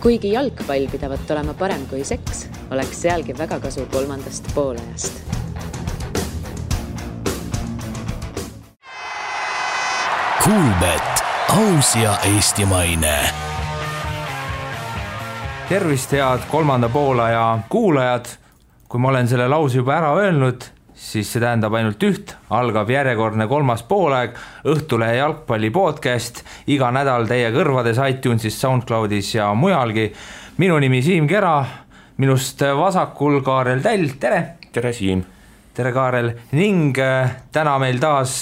Kuigi jalgpall pidavat olema parem kui seks, oleks sealgi väga kasu kolmandast poolajast. Kuulbet, aus ja eestimaine. Tervist, head kolmanda poolaja kuulajad. Kui ma olen selle lause juba ära öelnud, siis see tähendab ainult üht. Algab järjekordne kolmas poolaeg, Õhtulehe jalgpalli podcast. Iga nädal teie kõrvades iTunesis, SoundCloudis ja mujalgi. Minu nimi Siim Kera, minust vasakul Kaarel Täll. Tere! Tere, Siim! Tere, Kaarel! Ning täna meil taas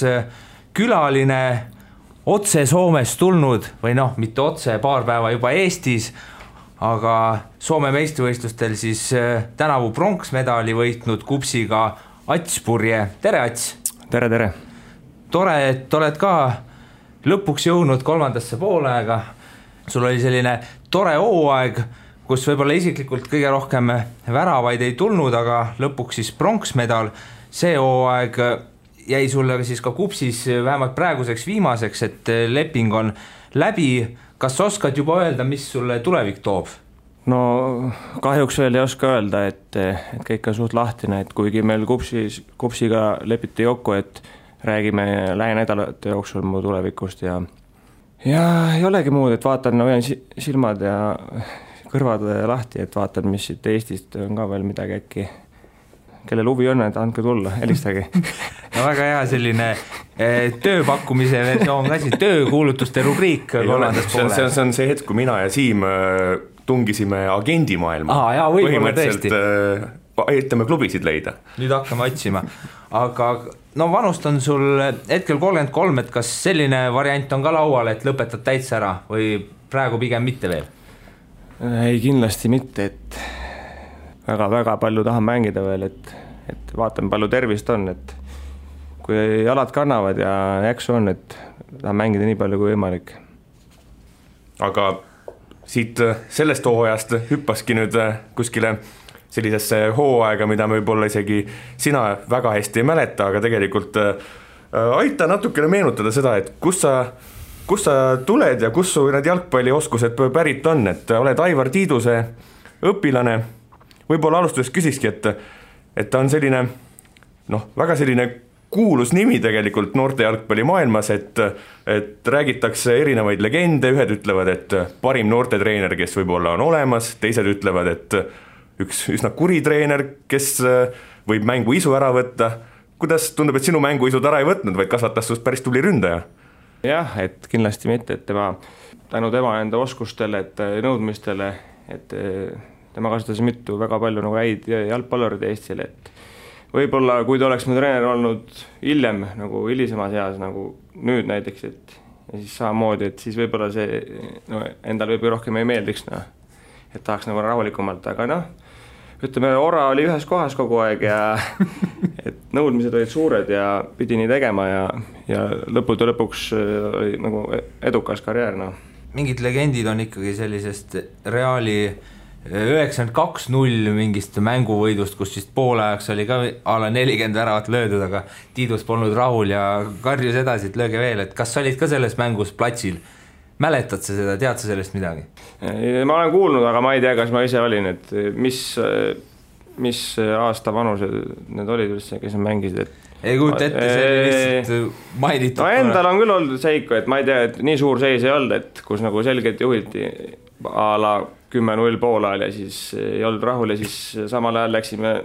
külaline otse Soomest tulnud, või mitte otse, paar päeva juba Eestis, aga Soome meistrivõistlustel siis tänavu pronksmedali võitnud kupsiga Ats Purje. Tere, Ats! Tere, tere! Tore, et oled ka lõpuks jõudnud kolmandasse poolaega. Sul oli selline tore hooaeg, kus võib-olla isiklikult kõige rohkem väravaid ei tulnud, aga lõpuks siis pronksmedal. See hooaeg jäi sulle siis ka kupsis vähemalt praeguseks viimaseks, et leping on läbi. Kas oskad juba öelda, mis sulle tulevik toob? No kahjuks veel ei oska öelda, et kõik on suht lahtine, et kuigi meil kupsiga lepiti kokku, et räägime lähinädalate jooksul mu tulevikust ja ei olegi muud, et vaatan, hoian silmad ja kõrvad lahti, et vaatan, mis siit Eestist on ka veel midagi äkki. Kellel huvi on, et andke tulla, helistagi. No väga hea selline tööpakkumise versioon ka siis, töökuulutuste rubriik. See on see hetk, kui mina ja Siim tungisime agendimaailma. Põhimõtteliselt aitame klubisid leida. Nüüd hakkame otsima. Aga vanust on sul hetkel 33, et kas selline variant on ka laual, et lõpetad täitsa ära või praegu pigem mitte veel? Ei, kindlasti mitte, et väga palju tahan mängida veel, et vaatan palju tervist on, et kui jalad kannavad ja jaksu on, et tahan mängida nii palju kui võimalik. Aga siit sellest hooajast hüppaski nüüd kuskile sellisesse hooaega, mida me võib-olla isegi sina väga hästi ei mäleta, aga tegelikult aita natukene meenutada seda, et kus sa tuled ja kus su need jalgpallioskused pärit on, et oled Aivar Tiiduse õpilane. Võib-olla alustuseks küsikski, et ta on selline, väga selline kuulus nimi tegelikult noorte jalgpalli maailmas, et räägitakse erinevaid legende, ühed ütlevad, et parim noortetreener, kes võib-olla on olemas, teised ütlevad, et üks üsna kuri treener, kes võib mängu isu ära võtta. Kuidas tundub, et sinu mängu isud ära ei võtnud, vaid kasvatas sust päris tubli ründaja? Jah, et kindlasti mitte, et tänu tema enda oskustele, et nõudmistele, et tema kasutas mitu väga palju häid jalgpallurid Eestile, et võib-olla kui ta oleks mu treener olnud hiljem, nagu hilisemas eas, nagu nüüd näiteks, et ja siis samamoodi, et siis võib-olla see endal võib rohkem ei meeldiks, et tahaks nagu rahulikumalt, aga ütleme, Ora oli ühes kohas kogu aeg ja et nõudmised olid suured ja pidi nii tegema ja lõpuks oli nagu edukas karjäär. Mingid legendid on ikkagi sellisest Reali 92-0 mingist mänguvõidust, kus siis poolajaks oli ka ala 40 väravat löödud, aga Tiidus polnud rahul ja karjus edasi, et lööge veel. Et kas sa olid ka selles mängus platsil? Mäletad sa seda, tead sa sellest midagi? Ma olen kuulnud, aga ma ei tea, kas ma ise olin, et mis aasta vanused need olid üldse, kes mängisid, ei kujuta ette, see oli lihtsalt mainitud. Endal on küll olnud seika, et ma ei tea, et nii suur seis ei olnud, et kus nagu selgelt juhildi a la 10-0 poolajal ja siis ei olnud rahul ja siis samal ajal läksime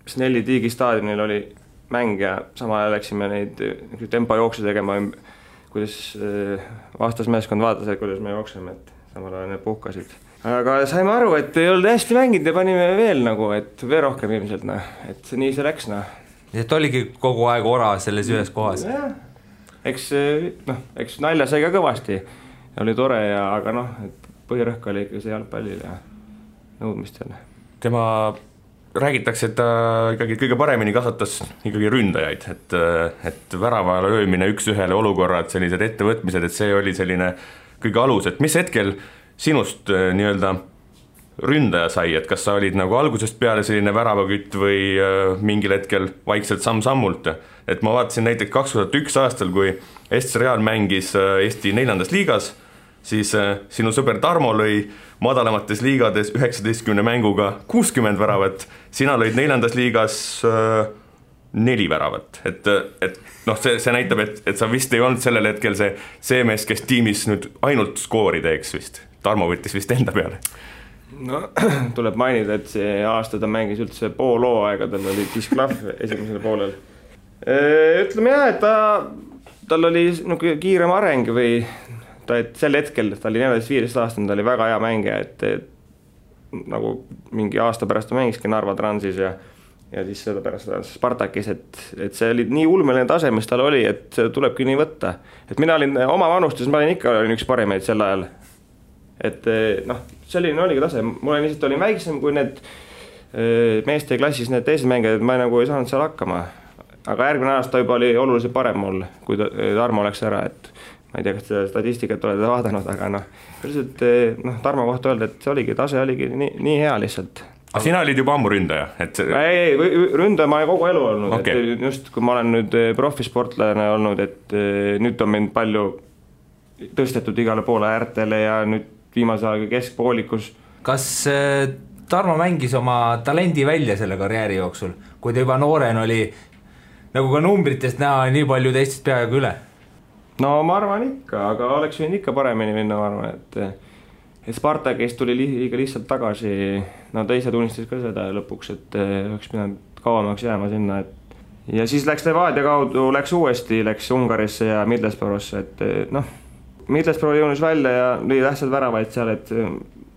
Snelli Tiigi staadionil oli mäng ja samal ajal läksime neid tempojookse tegema, kuidas vastasmeeskond vaatas, et kuidas me jookseme, et samal ajal need puhkasid. Aga saime aru, et ei olnud hästi mänginud ja panime veel et veel rohkem ilmselt, et nii see läks. Et oligi kogu aeg Ora selles ühes kohas? Ja, eks nalja sai ka kõvasti, oli tore, aga et põhirõhk oli ikka see jalgpallil ja nõudmistel. Tema räägitakse, et ta ikkagi kõige paremini kasvatas ikkagi ründajaid, et väravale öömine üks-ühele olukorrad, sellised ettevõtmised, et see oli selline kõige alus, et mis hetkel sinust nii-öelda ründaja sai, et kas sa olid nagu algusest peale selline väravakütt või mingil hetkel vaikselt samm-sammult, et ma vaatasin näiteks 2001 aastal, kui SC Real mängis Eesti 4. liigas, siis sinu sõber Tarmo lõi madalamates liigades 19 mänguga 60 väravat, sina lõid 4. liigas 4 väravat, et noh, see näitab, et sa vist ei olnud sellel hetkel see mees, kes tiimis nüüd ainult skoori teeks vist. Tarmo võttis vist enda peale. No tuleb mainida, et see aasta ta mängis üldse pool hooaega, tal oli disklahv esimesel poolel. Ütleme jah, et tal oli kiirem areng või et sel hetkel ta oli 14-15 aastane, ta oli väga hea mängija, et nagu mingi aasta pärast ta mängiski Narva Transis ja siis seda pärast Spartakis, et see oli nii ulmeline tase, mis tal oli, et see tulebki nii võtta. Et mina olin oma vanustes, ma olin ikka üks parimeid sel ajal. Et noh, selline oligi tase, mul lihtsalt olin väiksem kui need meeste klassis need teised mängijad, ma nagu ei saanud seal hakkama. Aga järgmine aasta juba oli oluliselt parem mul, kui Tarmo läks ära, et ma ei tea, kas seda statistikat olete vaadanud, aga Tarmo kohta öelda, et see oligi, tase oligi nii hea lihtsalt. Aga sina olid juba ammu ründaja? Ei, ründaja ma olen kogu elu olnud, okay. Et just kui ma olen nüüd profisportlane olnud, et nüüd on mind palju tõstetud igale poole äärtele ja nüüd viimase aega keskpoolikus. Kas Tarmo mängis oma talendi välja selle karjääri jooksul, kui ta juba nooren oli, nagu ka numbritest näha, nii palju teistest peaaegu üle? No ma arvan ikka, aga oleks võinud ikka paremini minna, ma arvan, et Spartakist tuli liiga lihtsalt tagasi, no teise tunnistas ka seda lõpuks, et oleks pidanud kauemaks jääma sinna, ja siis läks Levadia kaudu, läks Ungarisse ja Middlesbrough'sse, et noh, Middlesbrough jõunis välja ja lõi tähtsad väravaid seal, et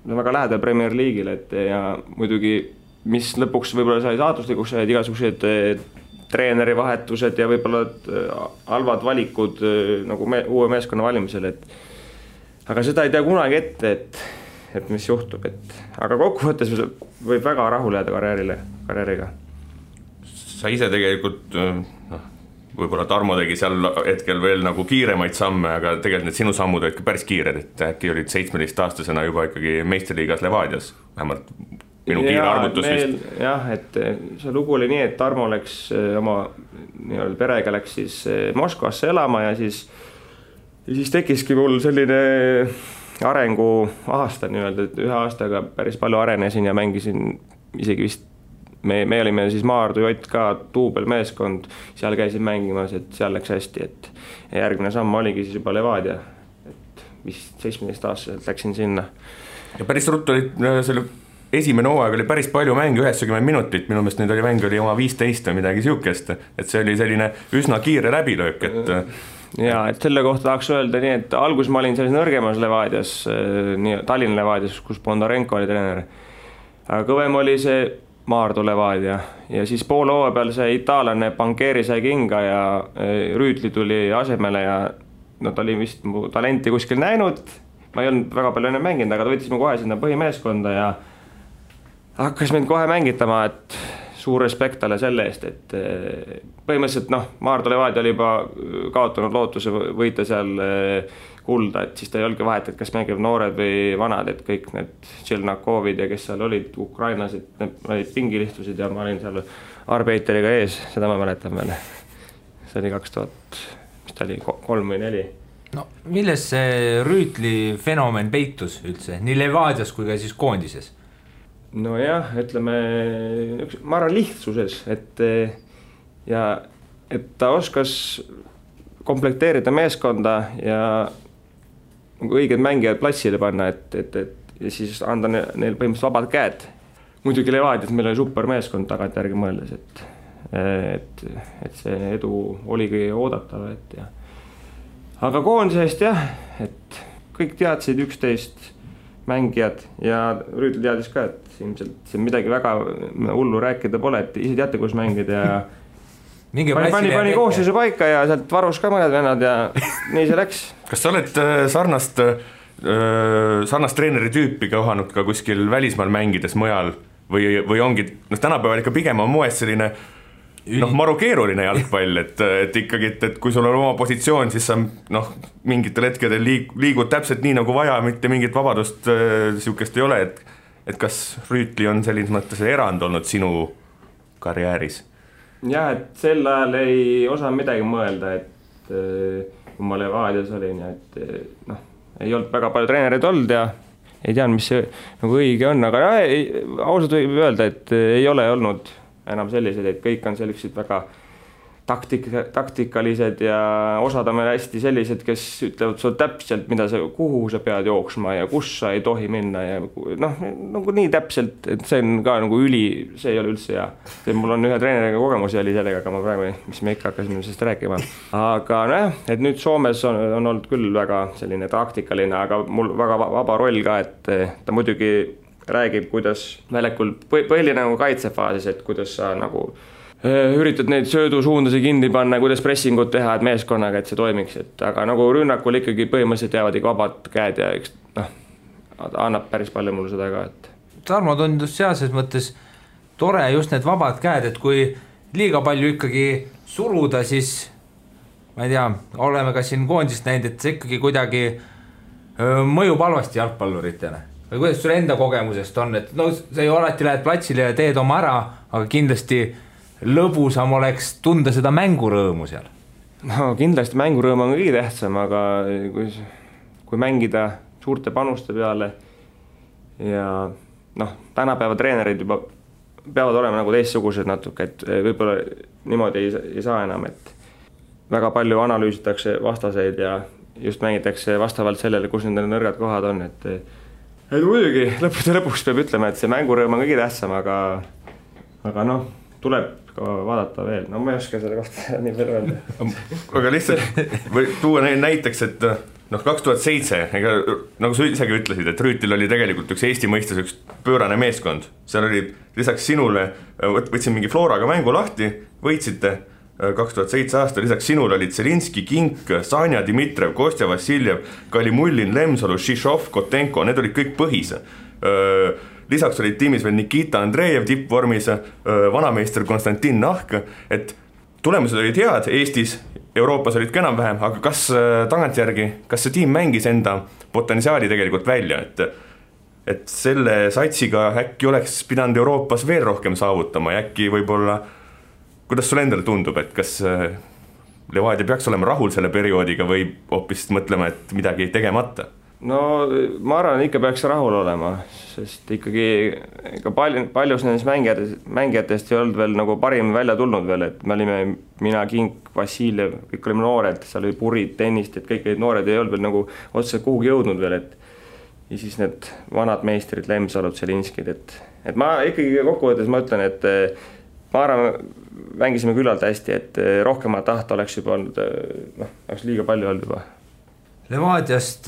väga lähedal Premier League'ile, et ja muidugi, mis lõpuks võib-olla sai saatuslikuks, said igasugused treeneri vahetused ja võib-olla halvad valikud nagu uue meeskonna valimisel, aga seda ei tea kunagi ette, et mis juhtub, aga kokkuvõttes võib väga rahul jääda karjääriga. Sa ise tegelikult, võib-olla Tarmo tegi seal hetkel veel nagu kiiremaid samme, aga tegelikult need sinu sammud olid päris kiired, et äkki olid 17-aastasena juba ikkagi meistriliigas Levadias, vähemalt minu kiire arvutus vist. Jah, et see lugu oli nii, et Tarmo läks oma perega läks siis Moskvasse elama ja siis tekkiski mul selline arengu aasta nii-öelda, et ühe aastaga päris palju arenesin ja mängisin isegi vist, me olime siis Maardu JK duubelmeeskond, seal käisin mängimas, et seal läks hästi, et järgmine samm oligi siis juba Levadia, et vist 17-aastaselt läksin sinna. Ja päris ruttu oli selle esimene hooaeg oli päris palju mänge, 90 minutit, minu meelest nüüd oli mäng oli oma 15 või midagi siukest, et see oli selline üsna kiire läbilöök, et ja, et selle kohta tahaks öelda nii, et alguses ma olin selles nõrgemas Levadias, Tallinna Levadias, kus Bondarenko oli treener, aga kõvem oli see Maardu Levadia ja siis poole hooaja peal see itaallane Bancheri sai kinga ja Rüütli tuli asemele ja ta oli vist mu talenti kuskil näinud, ma ei olnud väga palju enne mänginud, aga ta võttis mu kohe sinna põhimeeskonda ja hakkas mind kohe mängitama, et suur respekt talle selle eest, et põhimõtteliselt Maardu Levadia oli juba kaotanud lootuse võita seal kulda, et siis ta ei olnudki vahet, et kas mängib noored või vanad, et kõik need Tšelnakovid ja kes seal olid, ukrainlased, need olid pingilistusid ja ma olin seal arbeiteriga ees, seda ma mäletan veel. See oli 2000, mis ta oli, 3 või 4. No milles see Rüütli fenomen peitus üldse, nii Levadias kui ka siis koondises? No jah, ütleme, ma arvan lihtsuses, et ta oskas komplekteerida meeskonda ja õiged mängijad platsile panna, ja siis anda neil põhimõtteliselt vabad käed. Muidugi Levadias meil oli super meeskond tagantjärgi mõeldes, et see edu oligi oodatav, aga koondisest jah, et kõik teadsid 11 mängijad ja Rüütli teadis ka, et ilmselt see midagi väga hullu rääkida pole, et ise teate, kus mängida ja pani koosseisu paika ja sealt varus ka mõned vennad ja nii see läks. Kas sa oled sarnast treeneri tüüpi kohanud ka kuskil välismaal mängides mujal või ongi, tänapäeval ikka pigem on moes selline maru keeruline jalgpall, et ikkagi, et kui sul on oma positsioon, siis sa mingitel hetkedel liigud täpselt nii nagu vaja, mitte mingit vabadust siukest ei ole, et kas Rüütli on selline mõttes erand olnud sinu karjääris? Jah, et sel ajal ei osanud midagi mõelda, et kui ma Levadias olin, ei olnud väga palju treenereid olnud ja ei tean, mis see nagu õige on, aga ausalt võib öelda, et ei ole olnud enam sellised, et kõik on sellised väga taktikalised ja osad on meil hästi sellised, kes ütlevad sul täpselt, kuhu sa pead jooksma ja kus sa ei tohi minna ja nagu nii täpselt, et see on ka nagu see ei ole üldse hea. Mul on ühe treeneriga kogemusi oli sellega, aga ma praegu, mis me ikka hakkasime sellest rääkima. Aga et nüüd Soomes on olnud küll väga selline taktikaline, aga mul väga vaba roll ka, et ta muidugi räägib, kuidas väljakul põhiline nagu kaitsefaasis, et kuidas sa nagu üritad neid söödusuundasi kinni panna, kuidas pressingut teha, et meeskonnaga, et see toimiks, aga nagu rünnakul ikkagi põhimõtteliselt jäävad ikka vabad käed ja annab päris palju mulle seda ka, et Tarmo tundus sealses mõttes tore just need vabad käed, et kui liiga palju ikkagi suruda, siis ma ei tea, oleme ka siin koondist näinud, et see ikkagi kuidagi mõjub halvasti jalgpalluritele või kuidas sul enda kogemusest on, et sa ju alati lähed platsile ja teed oma ära, aga kindlasti lõbusam oleks tunda seda mängurõõmu seal. No kindlasti mängurõõm on kõige tähtsam, aga kui mängida suurte panuste peale ja tänapäeva treenerid juba peavad olema nagu teistsugused natuke, et võib-olla niimoodi ei saa enam, et väga palju analüüsitakse vastaseid ja just mängitakse vastavalt sellele, kus nende nõrgad kohad on, et muidugi lõpuks peab ütlema, et see mängurõõm on kõige tähtsam, aga tuleb vaadata veel, ma ei oska selle kohta nii palju öelda. Aga lihtsalt või tuua näiteks, et 2007, nagu sa isegi ütlesid, et Rüütil oli tegelikult üks Eesti mõistes üks pöörane meeskond. Seal oli lisaks sinule, võtsin mingi Floraga mängu lahti, võitsite 2007 aasta, lisaks sinule olid Zelinski, Kink, Sanja, Dmitrev, Kostja, Vassiljev, Kalimullin, Lemsalu, Šišov, Kotenko, need olid kõik põhis. Lisaks olid tiimis veel Nikita Andreev tippvormis, vanameister Konstantin Nahk, et tulemused olid head Eestis, Euroopas olid ka enam-vähem, aga kas tagantjärgi, kas see tiim mängis enda potentsiaali tegelikult välja, et selle satsiga äkki oleks pidanud Euroopas veel rohkem saavutama ja äkki võib-olla, kuidas sul endale tundub, et kas Levadia peaks olema rahul selle perioodiga või hoopis mõtlema, et midagi tegemata? No ma arvan, ikka peaks rahul olema, sest ikkagi paljus nendest mängijatest ei olnud veel nagu parim välja tulnud veel, et me olime mina, Kink, Vassiljev, kõik olime noored, seal oli Purid, tennist, et kõik need noored ei olnud veel nagu otseselt kuhugi jõudnud veel, et ja siis need vanad meistrid, Lemsalud, Zelinskid, et ma ikkagi kokkuvõttes ma ütlen, et ma arvan, mängisime küllalt hästi, et rohkemat tahta oleks juba olnud, oleks liiga palju olnud juba. Levadiast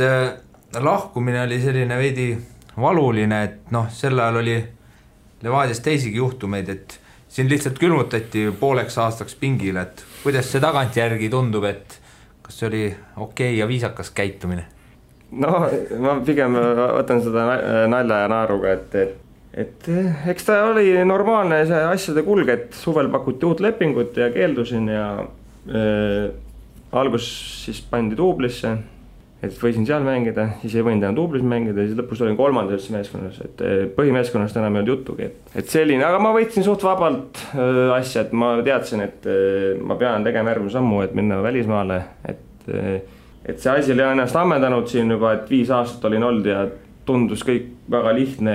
lahkumine oli selline veidi valuline, et sel ajal oli Levadias teisigi juhtumeid, et siin lihtsalt külmutati pooleks aastaks pingile, et kuidas see tagantjärgi tundub, et kas see oli okei ja viisakas käitumine? No ma pigem võtan seda nalja ja naaruga, et eks ta oli normaalne see asjade kulg, et suvel pakuti uut lepingut ja keeldusin ja algus siis pandi duublisse, et võisin seal mängida, siis ei võinud enam duublis mängida, siis lõpus olin kolmandas meeskonnas, et põhimeeskonnast enam ei olnud jutugi, et selline, aga ma võitsin suht vabalt asja, et ma teadsin, et ma pean tegema järgmine sammu, et minna välismaale, et see asi oli ennast ammendanud siin juba, et 5 aastat olin olnud ja tundus kõik väga lihtne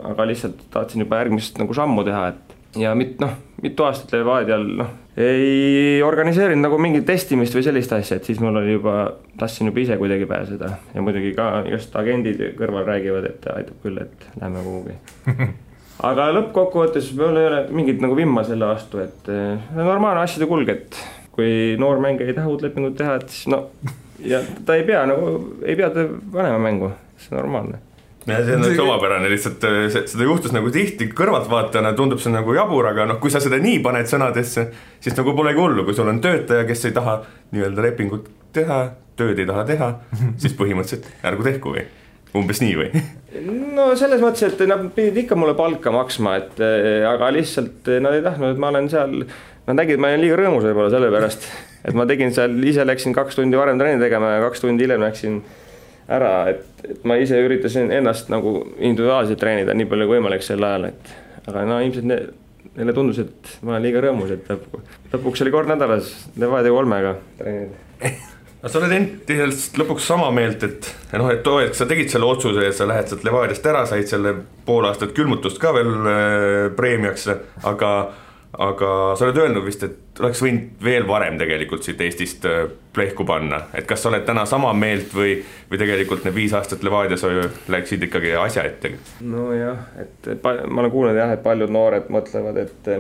aga lihtsalt tahtsin juba järgmist nagu sammu teha, ja mitu aastat Levadial ei organiseerinud nagu mingit testimist või sellist asja, et siis mul oli tahtsin juba ise kuidagi pääseda ja muidugi ka just agendid kõrval räägivad, et aitab küll, et lähme kuhugi. Aga lõppkokkuvõttes mul ei ole mingit nagu vimma selle vastu, et normaalne asjade kulg, et kui noor mängija ei taha uut lepingut teha, et siis ja ta ei pea panema mängu, see on normaalne. Ja see on üks omapärane, lihtsalt seda juhtus nagu tihti kõrvaltvaatajana, tundub see nagu jabur, aga kui sa seda nii paned sõnadesse, siis nagu polegi hullu, kui sul on töötaja, kes ei taha nii-öelda lepingut teha, tööd ei taha teha, siis põhimõtteliselt ärgu tehku või umbes nii või? No selles mõttes, et nad pidid ikka mulle palka maksma, aga lihtsalt nad ei tahtnud, et ma olen seal, nad nägid, ma olen liiga rõõmus võib-olla selle pärast, et ma tegin seal, ise läksin 2 tundi varem treeni tegema ja 2 tundi hiljem läksin ära, et ma ise üritasin ennast nagu individuaalselt treenida nii palju kui võimalik sel ajal, aga ilmselt neile tundus, et ma olen liiga rõõmus, et lõpuks oli kord nädalas Levadia 3-ga treenida. sa oled endiselt lõpuks sama meelt, et sa tegid selle otsuse ja sa lähed sealt Levadiast ära, said selle pool aastat külmutust ka veel preemiaks, aga sa oled öelnud vist, et oleks võinud veel varem tegelikult siit Eestist plehku panna, et kas sa oled täna sama meelt või tegelikult need 5 aastat Levadias läksid ikkagi asja ette? No jah, et ma olen kuulnud jah, et paljud noored mõtlevad, et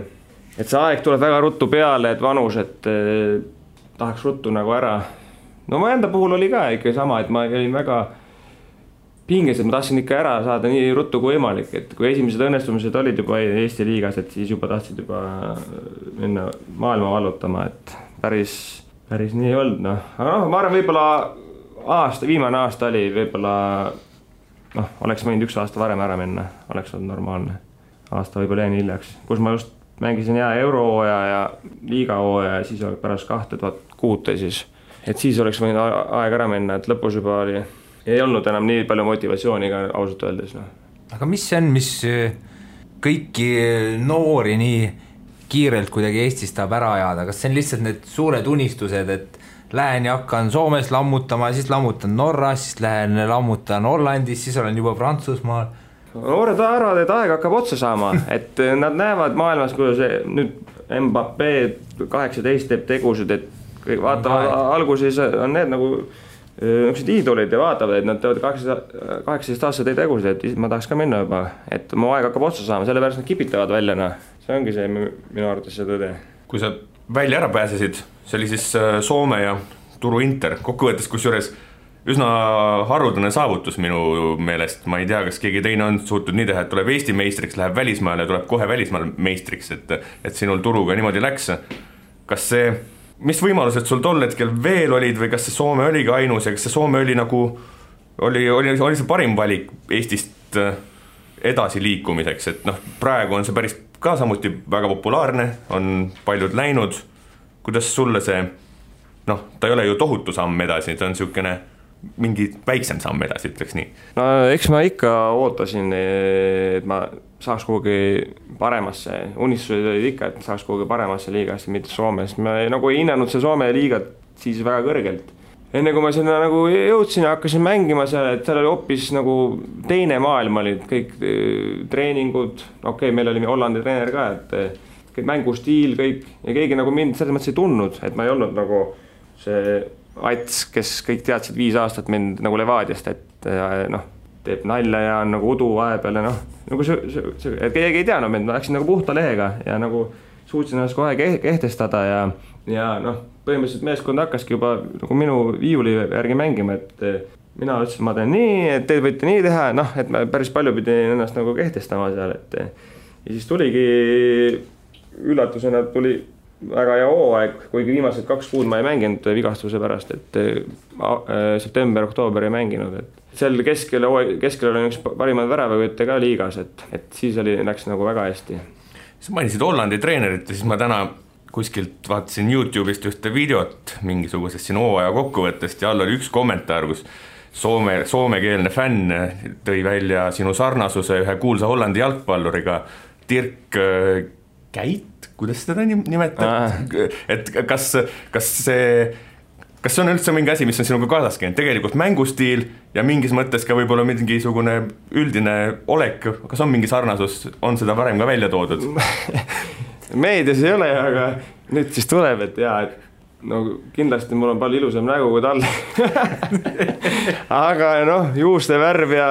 see aeg tuleb väga ruttu peale, et vanus, et tahaks ruttu nagu ära. No ma enda puhul oli ka ikka sama, et ma olin väga pinges, et ma tahtsin ikka ära saada nii ruttu kui võimalik, et kui esimesed õnnestumised olid juba Eesti liigas, et siis juba tahtsid juba minna maailma vallutama, et päris nii ei olnud, noh. Aga ma arvan, võib-olla viimane aasta oli võib-olla, oleks võinud 1 aasta varem ära minna, oleks olnud normaalne. Aasta võib-olla jäin hiljaks, kus ma just mängisin eurohooaja ja liigahooaja ja siis pärast 2006 siis. Et siis oleks võinud aeg ära minna, et lõpus juba ei olnud enam nii palju motivatsiooni ka ausalt öeldes. No. Aga mis see on, mis kõiki noori nii kiirelt kuidagi Eestis tahab ära ajada? Kas see on lihtsalt need suured unistused, et lähen ja hakkan Soomes lammutama, siis lammutan Norras, siis lähen lammutan Hollandis, siis olen juba Prantsusmaal? Noored arvavad, et aeg hakkab otsa saama, et nad näevad maailmas, kuidas nüüd Mbappé 18 teeb tegusid, et vaatavad alguses on need nagu niisugused iidolid ja vaatavad, et nad teevad 18 aastat tegusid, et ma tahaks ka minna juba, et mu aeg hakkab otsa saama, sellepärast nad kipitavad välja, see ongi see minu arvates see tõde. Kui sa välja ära pääsesid, see oli siis Soome ja Turu Inter, kokkuvõttes kusjuures üsna haruldane saavutus minu meelest, ma ei tea, kas keegi teine on suutnud nii teha, et tuleb Eesti meistriks, läheb välismaale ja tuleb kohe välismaal meistriks, et sinul Turuga niimoodi läks. Kas see, mis võimalused sul tol hetkel veel olid või kas see Soome oligi ainus ja kas see Soome oli nagu, oli see parim valik Eestist edasi liikumiseks, et praegu on see päris ka samuti väga populaarne, on paljud läinud, kuidas sulle see, ta ei ole ju tohutu samm edasi, ta on niisugune mingi väiksem samm edasi, ütleks nii. No eks ma ikka ootasin, et ma saaks kuhugi paremasse, unistused olid ikka, et saaks kuhugi paremasse liigasse, mitte Soomes. Ma nagu ei hinnanud see Soome liigat siis väga kõrgelt. Enne kui ma sinna nagu jõudsin ja hakkasin mängima seal, et seal oli hoopis nagu teine maailm olid, kõik treeningud, meil oli Hollandi treener ka, et kõik mängustiil, kõik ja keegi nagu mind selles mõttes ei tundnud, et ma ei olnud nagu see Ats, kes kõik teadsid 5 aastat mind nagu Levadiast, et teeb nalja ja on nagu udu vahepeal ja nagu et keegi ei teadnud mind, ma läksin nagu puhta lehega ja nagu suutsin ennast kohe kehtestada ja põhimõtteliselt meeskond hakkaski juba nagu minu viiuli järgi mängima, et mina ütlesin, ma teen nii, et te võite nii teha, et ma päris palju pidin ennast nagu kehtestama seal, et ja siis tuligi üllatusena tuli väga hea hooaeg, kuigi viimased 2 kuud ma ei mänginud vigastuse pärast, et september-oktoober ei mänginud, et seal keskel oli üks parimad väravavõtte ka liigas, et siis läks nagu väga hästi. Sa mainisid Hollandi treenerit ja siis ma täna kuskilt vaatasin YouTube'ist ühte videot mingisugusest siin hooaja kokkuvõttest ja all oli üks kommentaar, kus soomekeelne fänn tõi välja sinu sarnasuse ühe kuulsa Hollandi jalgpalluriga Dirk Käit, kuidas seda nimetab? Et kas see on üldse mingi asi, mis on sinuga kaasas käinud? Tegelikult mängustiil ja mingis mõttes ka võib-olla mingisugune üldine olek, kas on mingi sarnasus, on seda varem ka välja toodud? Meedias ei ole, aga nüüd siis tuleb, et kindlasti mul on palju ilusam nägu kui tal. Aga juuste värv ja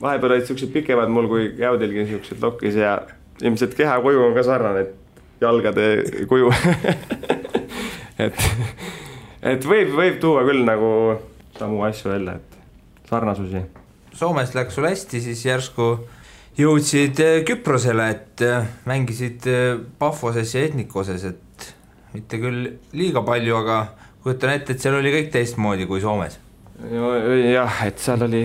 vahepeal olid siuksed pikemad mul kui Jäudilgi siuksed lokis ja ilmselt keha kuju on ka sarnane, et jalgade kuju. et võib tuua küll nagu samu asju välja, et sarnasusi. Soomes läks sul hästi, siis järsku jõudsid Küprosele, et mängisid Pafoses ja Etnikoses, et mitte küll liiga palju, aga kujutan ette, et seal oli kõik teistmoodi kui Soomes. Jah, et seal oli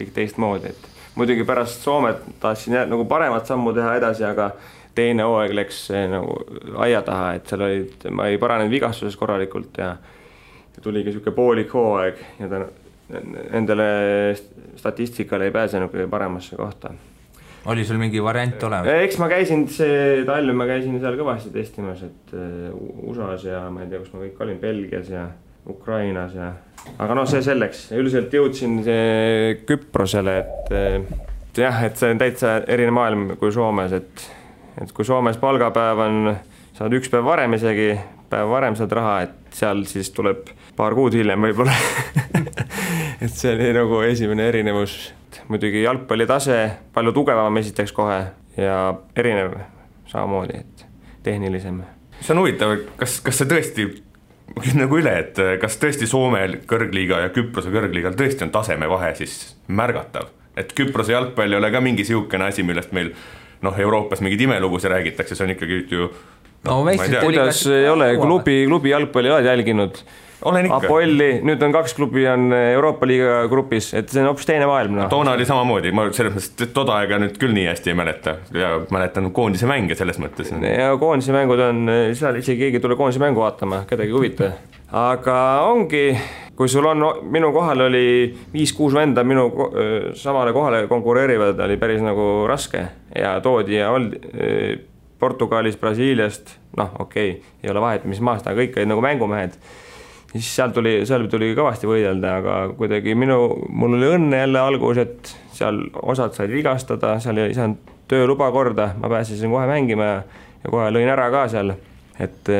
kõik teistmoodi, et muidugi pärast Soomet tahtsin nagu paremat sammu teha edasi, aga teine hooaeg läks nagu aia taha, et seal ma ei paranenud vigastuses korralikult ja tuligi siuke poolik hooaeg ja endale statistikale ei pääsenud kõige paremasse kohta. Oli sul mingi variant olemas? Eks ma käisin seal kõvasti testimas, et USAs ja ma ei tea, kus ma kõik olin, Belgias ja Ukrainas ja aga see selleks, üldiselt jõudsin Küprosele, et jah, et see on täitsa erinev maailm kui Soomes, et kui Soomes palgapäev on, saad üks päev varem isegi, päev varem saad raha, et seal siis tuleb paar kuud hiljem võib-olla et see oli nagu esimene erinevus, muidugi jalgpalli tase palju tugevam esiteks kohe ja erinev samamoodi, et tehnilisem. See on huvitav, kas see tõesti nagu üle, et kas tõesti Soome kõrgliiga ja Küprose kõrgliigal tõesti on tasemevahe siis märgatav, et Küprose jalgpall ei ole ka mingi siukene asi, millest meil Euroopas mingid imelugusi räägitakse, see on ikkagi ju kuidas ei ole, klubi jalgpalli oled jälginud? Olen ikka. Apolli, nüüd on 2 klubi on Euroopa liiga grupis, et see on hoopis teine maailm. Toona oli samamoodi, ma selles mõttes toda aega nüüd küll nii hästi ei mäleta ja mäletan koondise mänge selles mõttes. Ja koondise mängud on, seal isegi keegi tule koondise mängu vaatama, kedagi huvita. Aga ongi, kui sul on, minu kohal oli 5-6 venda, minu samale kohale konkureerivad, oli päris nagu raske ja toodi ja oldi Portugalis, Brasiiliast, ei ole vahet, mis maast, aga kõik olid nagu mängumehed. Siis seal tuli kõvasti võidelda, aga kuidagi mul oli õnne jälle algus, et seal osad said vigastada, seal ei saanud tööluba korda, ma pääsesin kohe mängima ja kohe lõin ära ka seal, et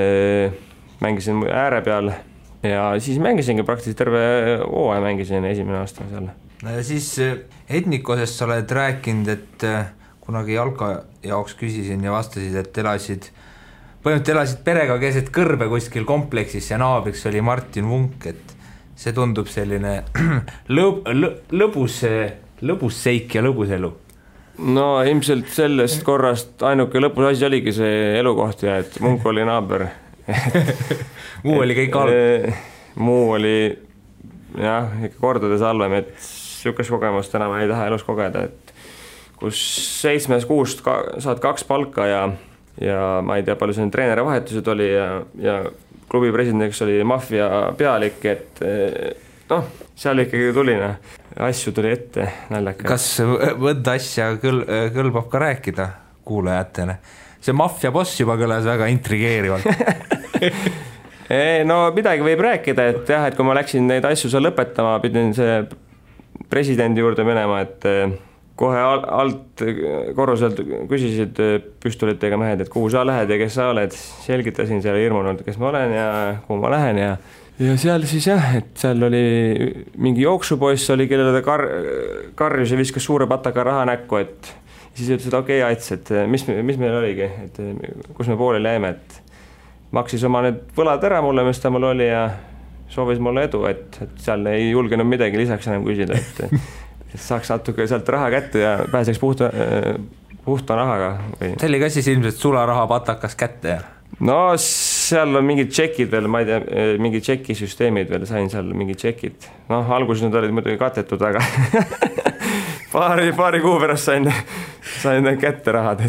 mängisin ääre peal ja siis mängisingi praktiliselt terve hooaja mängisin esimene aasta seal. No ja siis Etnikosest sa oled rääkinud, et kunagi jalka jaoks küsisin ja vastasid, et põhimõtteliselt elasid perega keset kõrbe kuskil kompleksis ja naabriks oli Martin Vunk, et see tundub selline lõbus seik ja lõbus elu. No ilmselt sellest korrast ainuke lõpus asi oligi see elukoht ja et Vunk oli naaber. Muu oli kõik halb. Muu oli jah, ikka kordades halvem, et sükest kogemust enam ei taha elus kogeda, et kus 7 kuust saad 2 palka ja ma ei tea, palju see treeneri vahetused oli ja klubi presidendiks oli maffia pealik, et seal ikkagi tuli, asju tuli ette naljaga. Kas võdda asja kõlbab ka rääkida kuulajatele? See maffia boss juba kõlas väga intrigeerivalt. No midagi võib rääkida, et jah, et kui ma läksin neid asju seal lõpetama, pidin see presidendi juurde minema, et kohe alt korruselt küsisid püstolitega mehed, et kuhu sa lähed ja kes sa oled. Selgitasin seal hirmunult, kes ma olen ja kuhu ma lähen ja seal siis jah, et seal oli mingi jooksupoiss oli, kellele ta karjus ja viskas suure pataka raha näkku, et siis ütles, et okei, Ats, et mis meil oligi, et kus me pooleli jäime, et maksis oma need võlad ära mulle, mis ta mul oli ja soovis mulle edu, et seal ei julgenud midagi lisaks enam küsida, et saaks natuke sealt raha kätte ja pääseks puhta rahaga. See oli ka siis ilmselt sularaha patakas kätte? No seal on mingid tšekid veel, ma ei tea, mingid tšekisüsteemid veel, sain seal mingid tšekid. Alguses need olid muidugi katetud, aga paari kuu pärast sain kätte rahad.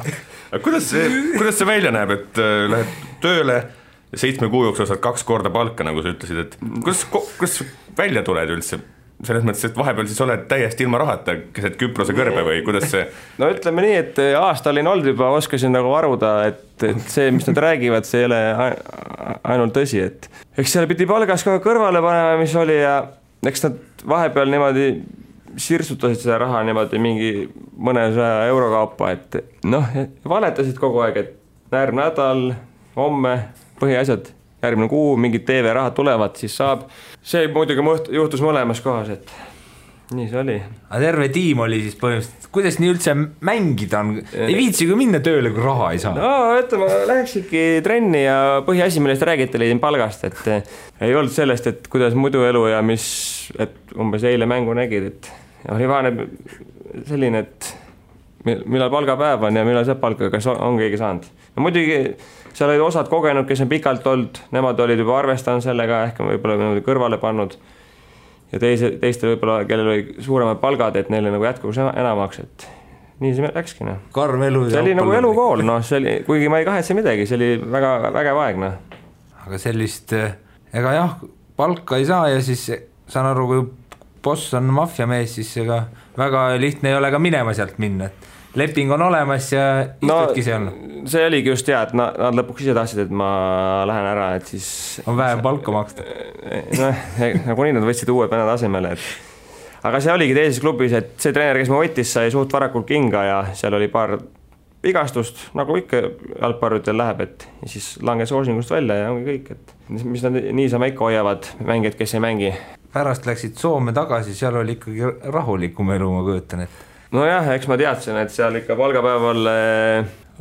Kuidas see välja näeb, et lähed tööle 7 kuu jooksul saad 2 korda palka, nagu sa ütlesid, et kuidas välja tuled üldse? Selles mõttes, et vahepeal siis oled täiesti ilma rahata keset Küprose kõrbe või kuidas see? No ütleme nii, et aasta olin olnud juba, oskasin nagu varuda, et see, mis nad räägivad, see ei ole ainult tõsi, et eks seal pidi palgas ka kõrvale panema, mis oli ja eks nad vahepeal niimoodi sirsutasid seda raha niimoodi mingi mõnesaja euro kaupa, et valetasid kogu aeg, et järgmine nädal, homme, põhiasjad, järgmine kuu, mingid TV-rahad tulevad, siis saab. See muidugi juhtus mõlemas kohas, et nii see oli. Aga terve tiim oli siis põhimõtteliselt, kuidas nii üldse mängida on? Ei viitsi kui minna tööle, kui raha ei saa? No, ütleme, lähekski trenni ja põhiasi, millest räägite, leidin palgast, et ei olnud sellest, et kuidas muidu elu ja et umbes eile mängu nägid, et oli vaane selline, et millal palgapäev on ja millal saab palka, kas on keegi saanud. No muidugi seal olid osad kogenud, kes on pikalt olnud, nemad olid juba arvestanud sellega, ehk võib-olla kõrvale pannud ja teistel võib-olla, kellel oli suuremad palgad, et neile nagu jätkuks enamaks, et nii see läkski. Karm elu. See oli nagu elukool, kuigi ma ei kahetse midagi, see oli väga vägev aeg. Aga sellist, ega jah, palka ei saa ja siis saan aru, kui boss on maffiamees, siis ega väga lihtne ei ole ka minema sealt minna, et leping on olemas ja istudki seal. See oligi just hea, et nad lõpuks ise tahtsid, et ma lähen ära, et siis on vähem palka maksta. Nagu nii nad võtsid uue pennad asemele, aga see oligi teises klubis, et see treener, kes ma võttis, sai suht varakult kinga ja seal oli paar vigastust, nagu ikka jalgpallutel läheb, et ja siis langes hoosingust välja ja ongi kõik, et mis nad niisama ikka hoiavad mängijad, kes ei mängi. Pärast läksid Soome tagasi, seal oli ikkagi rahulikum elu, ma kujutan, et nojah, eks ma teadsin, et seal ikka palgapäeval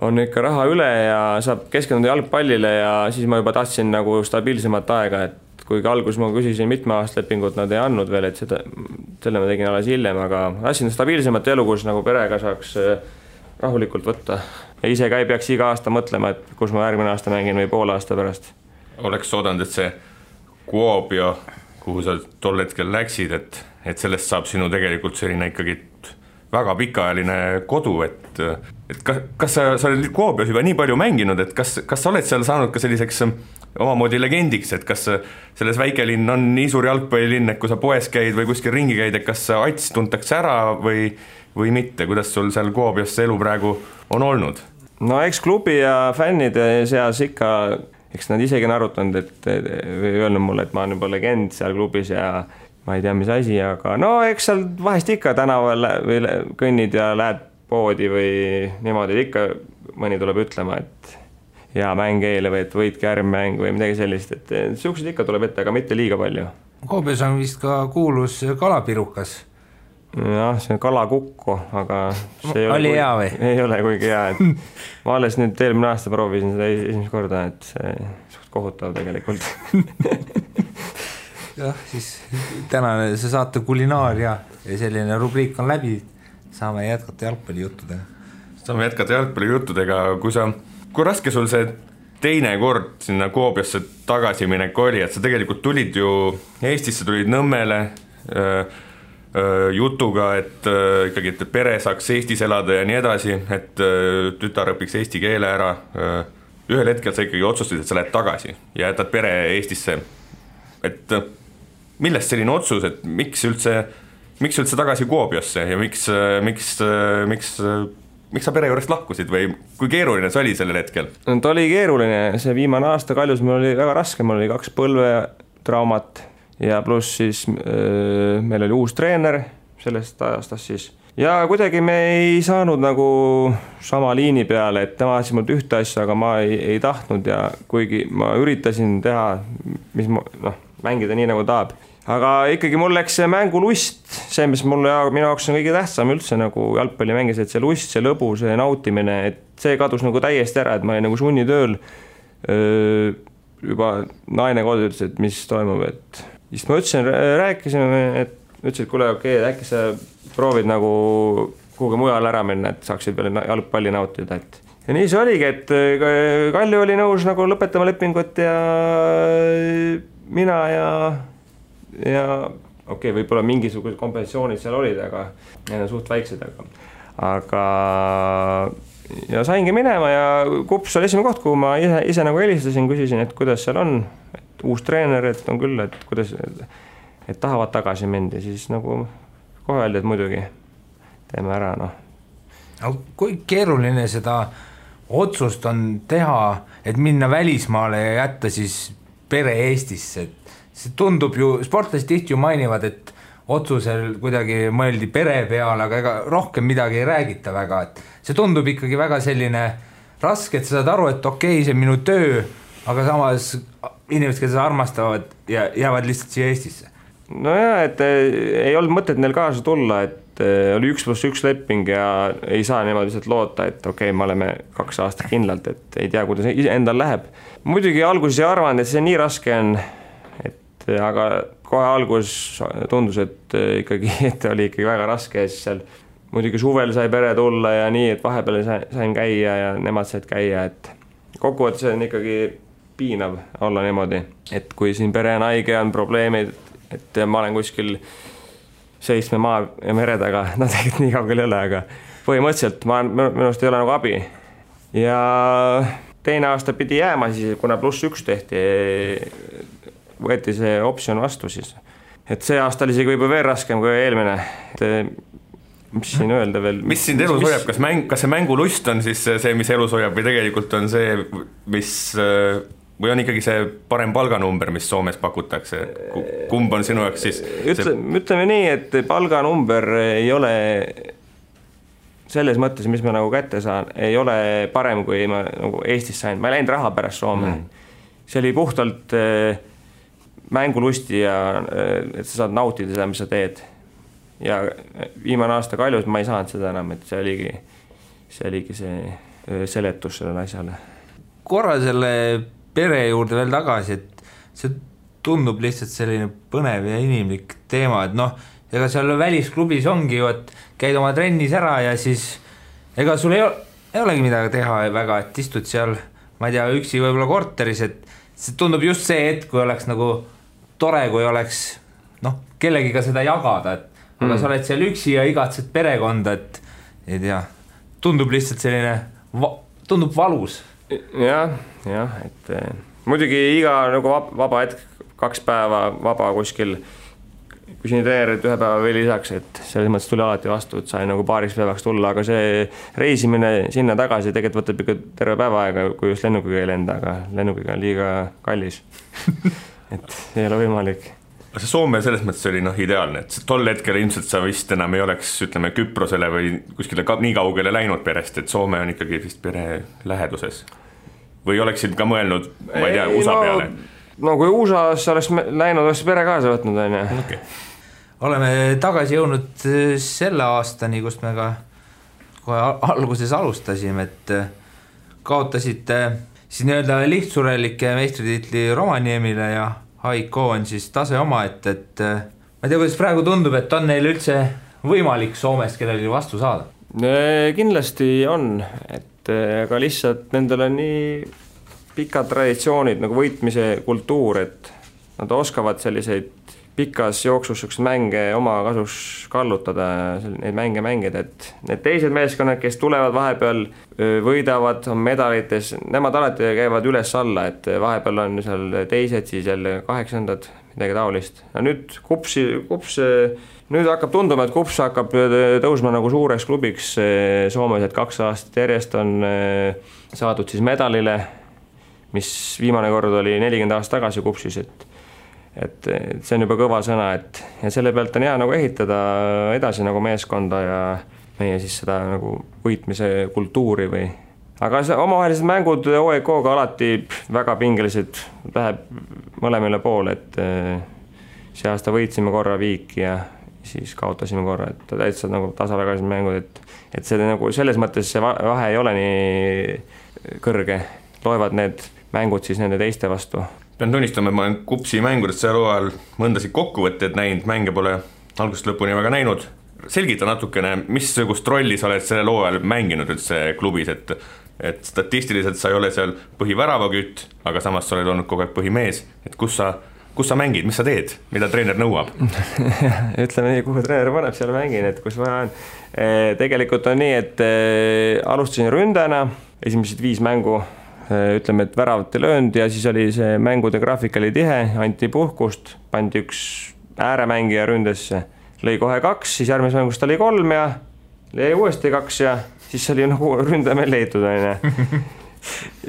on ikka raha üle ja saab keskenduda jalgpallile ja siis ma juba tahtsin nagu stabiilsemat aega, et kuigi alguses ma küsisin mitme aasta lepingut, nad ei andnud veel, et selle ma tegin alles hiljem, aga tahtsin stabiilsemat elu, kus nagu perega saaks rahulikult võtta. Ja ise ka ei peaks iga aasta mõtlema, et kus ma järgmine aasta mängin või poole aasta pärast. Oleks oodanud, et see Kuopio, kuhu sa tol hetkel läksid, et sellest saab sinu tegelikult selline ikkagi väga pikaajaline kodu, et kas sa oled Kuopios juba nii palju mänginud, et kas sa oled seal saanud ka selliseks omamoodi legendiks, et kas selles väikelinn on nii suur jalgpallilinn, et kui sa poes käid või kuskil ringi käid, et kas Ats tuntakse ära või mitte, kuidas sul seal Kuopios see elu praegu on olnud? No eks klubi ja fännide seas ikka, eks nad isegi on arutanud, või öelnud mulle, et ma olen juba legend seal klubis ja ma ei tea, mis asi, aga no eks seal vahest ikka tänaval või kõnnid ja lähed poodi või niimoodi, ikka mõni tuleb ütlema, et hea mäng eile või et võitke äärmäng või midagi sellist, et siuksed ikka tuleb ette, aga mitte liiga palju. Koobios on vist ka kuulus kalapirukas. Jah, see on kalakukko, aga see oli hea või? Ei ole kuigi hea, et ma alles nüüd eelmine aasta proovisin seda esimest korda, et see suht kohutav tegelikult. Jah, siis tänane see saate kulinaaria ja selline rubriik on läbi, saame jätkata jalgpallijuttudega. Kui raske sul see teine kord sinna Kuopiosse tagasi minek oli, et sa tegelikult tulid ju Eestisse, tulid Nõmmele jutuga, et ikkagi et pere saaks Eestis elada ja nii edasi, et tütar õpiks eesti keele ära. Ühel hetkel sa ikkagi otsustasid, et sa lähed tagasi ja jätad pere Eestisse. Et millest selline otsus, et miks üldse tagasi Kuopiosse ja miks sa pere juurest lahkusid või kui keeruline see oli sellel hetkel? Ta oli keeruline, see viimane aasta Kaljus mul oli väga raske, mul oli 2 põlvetraumat ja pluss siis meil oli uus treener sellest aastast siis. Ja kuidagi me ei saanud nagu sama liini peale, et tema ajas mult ühte asja, aga ma ei tahtnud ja kuigi ma üritasin teha, mis mängida nii nagu tahab. Aga ikkagi mul läks see mängulust, see, mis minu jaoks on kõige tähtsam üldse nagu jalgpalli mängis, et see lust, see lõbu, see nautimine, et see kadus nagu täiesti ära, et ma olin nagu sunnitööl. Juba naine kodu ütles, et mis toimub, et siis ma rääkisime, et ütlesid, kuule, okei, äkki sa proovid nagu kuhugi mujal ära minna, et saaksid veel jalgpalli nautida, et ja nii see oligi, et Kalju oli nõus nagu lõpetama lepingut ja mina ja okei, võib-olla mingisugused kompensatsioonid seal olid, aga need on suht väiksed, aga ja saingi minema ja Kups oli esimene koht, kuhu ma ise nagu helistasin, küsisin, et kuidas seal on, et uus treener, et on küll, et kuidas, et tahavad tagasi mind ja siis nagu kohe öeldi, et muidugi teeme ära, Kui keeruline seda otsust on teha, et minna välismaale ja jätta siis pere Eestisse, et see tundub ju, sportlased tihti ju mainivad, et otsusel kuidagi mõeldi pere peale, aga ega rohkem midagi ei räägita väga, et see tundub ikkagi väga selline raske, et sa saad aru, et okei, see on minu töö, aga samas inimesed, kes armastavad ja jäävad lihtsalt siia Eestisse. No jah, et ei olnud mõtet neil kaasa tulla, et oli 1+1 leping ja ei saa niimoodi lihtsalt loota, et okei, me oleme 2 aastat kindlalt, et ei tea, kuidas endal läheb. Muidugi alguses ei arvanud, et see nii raske on, aga kohe algus tundus, et ikkagi et oli ikkagi väga raske ja siis seal muidugi suvel sai pere tulla ja nii, et vahepeal sain käia ja nemad said käia, et kokkuvõttes on ikkagi piinav olla niimoodi, et kui siin pere on haige, on probleemid, et ma olen kuskil 7 maa ja mere taga, tegelikult nii kaugel ei ole, aga põhimõtteliselt minust ei ole nagu abi ja teine aasta pidi jääma siis, kuna +1 tehti, võeti see optsioon vastu siis. Et see aasta oli isegi võib-olla veel raskem kui eelmine. mis siin öelda veel? Mis sind elus hoiab, kas see mängulust on siis see, mis elus hoiab või tegelikult on see, mis või on ikkagi see parem palganumber, mis Soomes pakutakse, kumb on sinu jaoks siis? Ütleme nii, et palganumber ei ole selles mõttes, mis ma nagu kätte saan, ei ole parem, kui ma nagu Eestis sain. Ma ei läinud raha pärast Soome. See oli puhtalt mängulusti ja et sa saad nautida seda, mis sa teed. Ja viimane aasta Kaljus ma ei saanud seda enam, et see oligi see seletus sellele asjale. Korra selle pere juurde veel tagasi, et see tundub lihtsalt selline põnev ja inimlik teema, et ega seal välisklubis ongi ju, et käid oma trennis ära ja siis ega sul ei olegi midagi teha väga, et istud seal, ma ei tea, üksi võib-olla korteris, et see tundub just see hetk, kui oleks nagu tore, kui oleks kellegiga seda jagada, et aga sa oled seal üksi ja igatsed perekonda, et ei tea, tundub lihtsalt selline, tundub valus. Jah, et muidugi iga nagu vaba hetk, 2 päeva vaba kuskil, kui siin treenerid 1 päeva veel lisaks, et selles mõttes tuli alati vastu, et sai nagu paariks päevaks tulla, aga see reisimine sinna tagasi tegelikult võtab ikka terve päeva aega, kui just lennukiga ei lenda, aga lennukiga on liiga kallis. Et ei ole võimalik. See Soome selles mõttes oli ideaalne, et tol hetkel ilmselt sa vist enam ei oleks, ütleme, Küprosele või kuskile nii kaugele läinud perest, et Soome on ikkagi vist pere läheduses. Või oleksid ka mõelnud, ma ei tea, USA peale? No kui USA-s oleks läinud, oleks pere kaasa võtnud, on ju. Okay. Oleme tagasi jõudnud selle aastani, kus me ka kohe alguses alustasime, et kaotasite siis nii-öelda lihtsurelike meistritiitli Rovaniemile ja Haiko on siis tase oma, et ma ei tea, kuidas praegu tundub, et on neil üldse võimalik Soomest kellelgi vastu saada? Kindlasti on, et aga lihtsalt nendel on nii pikad traditsioonid nagu võitmise kultuur, et nad oskavad selliseid pikas jooksus mänge oma kasuks kallutada, neid mänge mängida, et need teised meeskonnad, kes tulevad vahepeal, võidavad, on medalites, nemad alati käivad üles-alla, et vahepeal on seal teised, siis jälle 8, midagi taolist. Ja nüüd Kups, nüüd hakkab tunduma, et Kups hakkab tõusma nagu suureks klubiks Soomes, et 2 aastat järjest on saadud siis medalile, mis viimane kord oli 40 aastat tagasi Kupsis, et see on juba kõva sõna, et ja selle pealt on hea nagu ehitada edasi nagu meeskonda ja meie siis seda nagu võitmise kultuuri või. Aga omavahelised mängud OEK-ga alati väga pingelised, läheb mõlemile poole, et see aasta võitsime korra Viiki ja siis kaotasime korra, et täitsa nagu tasavägalised mängud, et see nagu selles mõttes see vahe ei ole nii kõrge, loevad need mängud siis nende teiste vastu. Pean tunnistama, et ma olen Kupsi mängudest seal ajal mõndasid kokkuvõtteid näinud, mänge pole algusest lõpuni väga näinud. Selgita natukene, missugust rolli sa oled selle loo ajal mänginud üldse klubis, et statistiliselt sa ei ole seal põhiväravakytt, aga samas sa oled olnud kogu aeg põhimees, et kus sa mängid, mis sa teed, mida treener nõuab? Ütleme nii, kuhu treener paneb, seal mängin, et kus vaja on. Tegelikult on nii, et alustasin ründajana, esimesed 5 mängu, ütleme, et väravat ei löönud ja siis oli see mängude graafik oli tihe, anti puhkust, pandi 1 ääremängija ründesse, lõi kohe 2, siis järgmises mängus ta lõi 3 ja lõi uuesti 2 ja siis oli nagu ründaja meil leitud.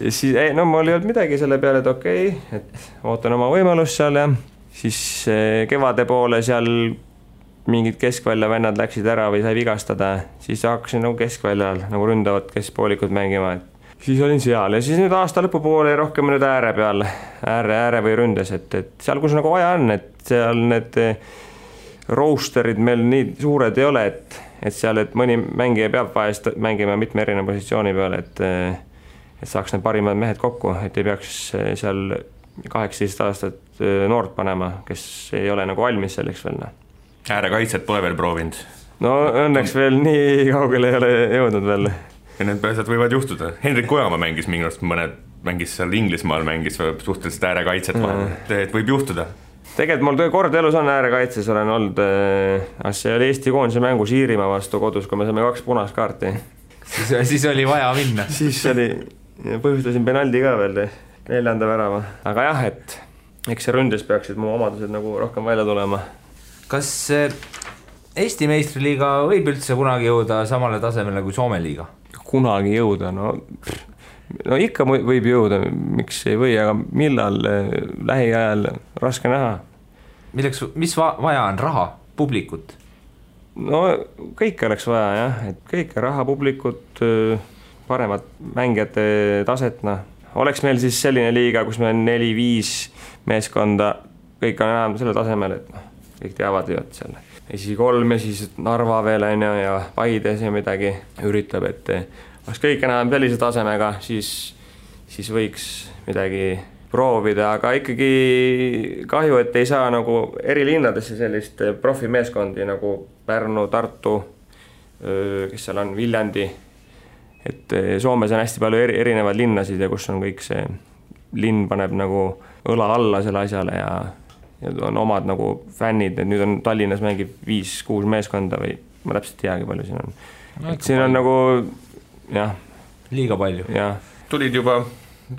Siis, mul ei olnud midagi selle peale, et okei, et ootan oma võimalust seal ja siis kevade poole seal mingid keskvälja vennad läksid ära või sai vigastada, siis hakkasin nagu keskväljal nagu ründavad keskpoolikud mängima, et siis olin seal ja siis nüüd aasta lõpupoole rohkem nüüd ääre peal, ääre või ründes, et seal, kus nagu vaja on, et seal need roosterid meil nii suured ei ole, et seal, et mõni mängija peab vahest mängima mitme erineva positsiooni peale, et saaks need parimad mehed kokku, et ei peaks seal 18 aastat noort panema, kes ei ole nagu valmis selleks veel. Äärekaitset pole veel proovinud? No õnneks veel nii kaugele ei ole jõudnud veel. Ja need asjad võivad juhtuda. Hendrik Ojamaa mängis mingust mängis seal Inglismaal, mängis suhteliselt äärekaitset vahel, et võib juhtuda. Tegelikult mul kord elus on äärekaitses, olen olnud, see oli Eesti koondise mängus Iirimaa vastu kodus, kui me saime 2 punast kaarti. Siis oli vaja minna. Siis oli, põhjustasin penaldi ka veel 4. värava. Aga jah, et eks see ründes peaksid mu omadused nagu rohkem välja tulema. Kas Eesti meistriliiga võib üldse kunagi jõuda samale tasemele kui Soome liiga? Kunagi jõuda, no ikka võib jõuda, miks ei või, aga millal lähiajal raske näha. Mis vaja on? Raha, publikut? No kõike oleks vaja jah, et kõike raha, publikut, paremat mängijate taset, oleks meil siis selline liiga, kus meil on 4-5 meeskonda, kõik on enam selle tasemel, et kõik teavad ju, et selle esi 3 ja siis Narva veel on ja Paides ja midagi üritab, et oleks kõik enam sellise tasemega, siis võiks midagi proovida, aga ikkagi kahju, et ei saa nagu eri linnadesse sellist profimeeskondi nagu Pärnu, Tartu, kes seal on, Viljandi, et Soomes on hästi palju erinevaid linnasid ja kus on kõik see linn paneb nagu õla alla selle asjale ja on omad nagu fännid, et nüüd on Tallinnas mängib 5-6 meeskonda või ma täpselt teagi palju siin on. Et siin on palju. Nagu jah. Liiga palju. Jah. Tulid juba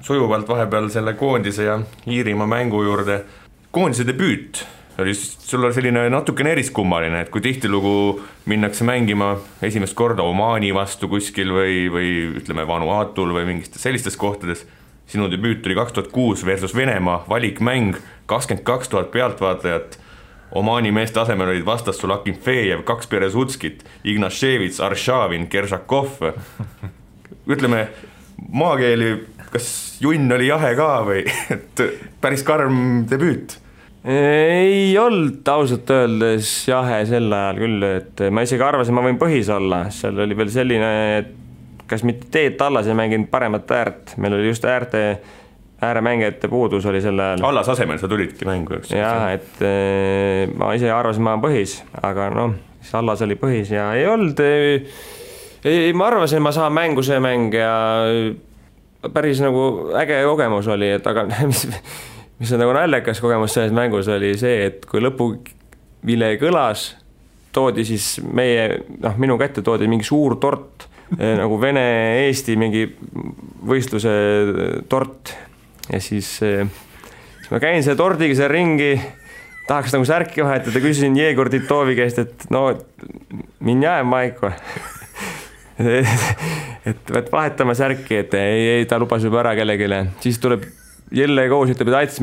sujuvalt vahepeal selle koondise ja Iirimaa mängu juurde. Koondise debüüt oli sul selline natukene eriskummaline, et kui tihtilugu minnakse mängima esimest korda Omaani vastu kuskil või ütleme Vanuatul või mingistes sellistes kohtades, sinu debüüt oli 2006 versus Venemaa valikmäng, 22 000 pealtvaatajat, Omaani meeste asemel olid vastas sul Akinfejev, 2 Perezutskit, Ignaševits, Arshavin, Kersakov. Ütleme, maakeeli, kas junn oli jahe ka või et päris karm debüüt? Ei olnud ausalt öeldes jahe sel ajal küll, et ma isegi arvasin, ma võin põhis olla, seal oli veel selline, et kas mitte teed tallas ei mänginud paremat äärt, meil oli just ääremängijate puudus oli sel ajal. Allas asemel sa tulidki mängu, eks? Jah, et ma ise arvasin, ma olen põhis, aga siis Allas oli põhis ja ei olnud, ma arvasin, ma saan mängu see mäng ja päris nagu äge kogemus oli, et aga mis on nagu naljakas kogemus selles mängus oli see, et kui lõpuvile kõlas, toodi siis minu kätte toodi mingi suur tort, nagu Vene-Eesti mingi võistluse tort ja siis ma käin selle tordiga seal ringi, tahaks nagu särki vahetada, küsisin Jegor Titovi käest, et minjää Maiko et vahetame särki, et ei, ta lubas juba ära kellegile, siis tuleb Jelle Koos ütleb, et aitas,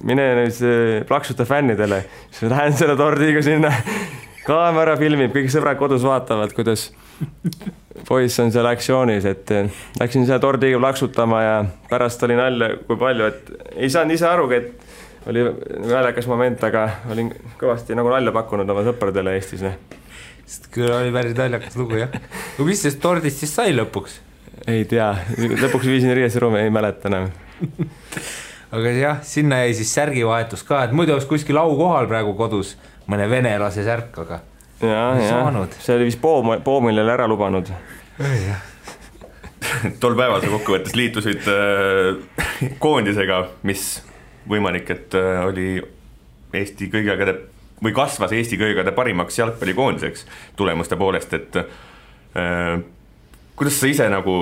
mine nüüd plaksuta fännidele, siis ma lähen selle tordiga sinna, kaamera filmib, kõik sõbrad kodus vaatavad, kuidas poiss on seal aktsioonis, et läksin selle tordiga plaksutama ja pärast oli nalja kui palju, et ei saanud ise arugi, et oli naljakas moment, aga olin kõvasti nagu nalja pakkunud oma sõpradele Eestis. Küll oli päris naljakas lugu, jah. Kui mis sest tordist siis sai lõpuks? Ei tea, lõpuks viisin riieseruumi, ei mäleta enam. Aga jah, sinna jäi siis särgivahetus ka, et muidu oleks kuskil au kohal praegu kodus mõne venelase särk, aga see oli vist Poomile ära lubanud. Tol päeval sa kokkuvõttes liitusid koondisega, mis võimalik, et oli Eesti kõigegade või kasvas Eesti kõigegade parimaks jalgpallikoondiseks tulemuste poolest, et kuidas sa ise nagu,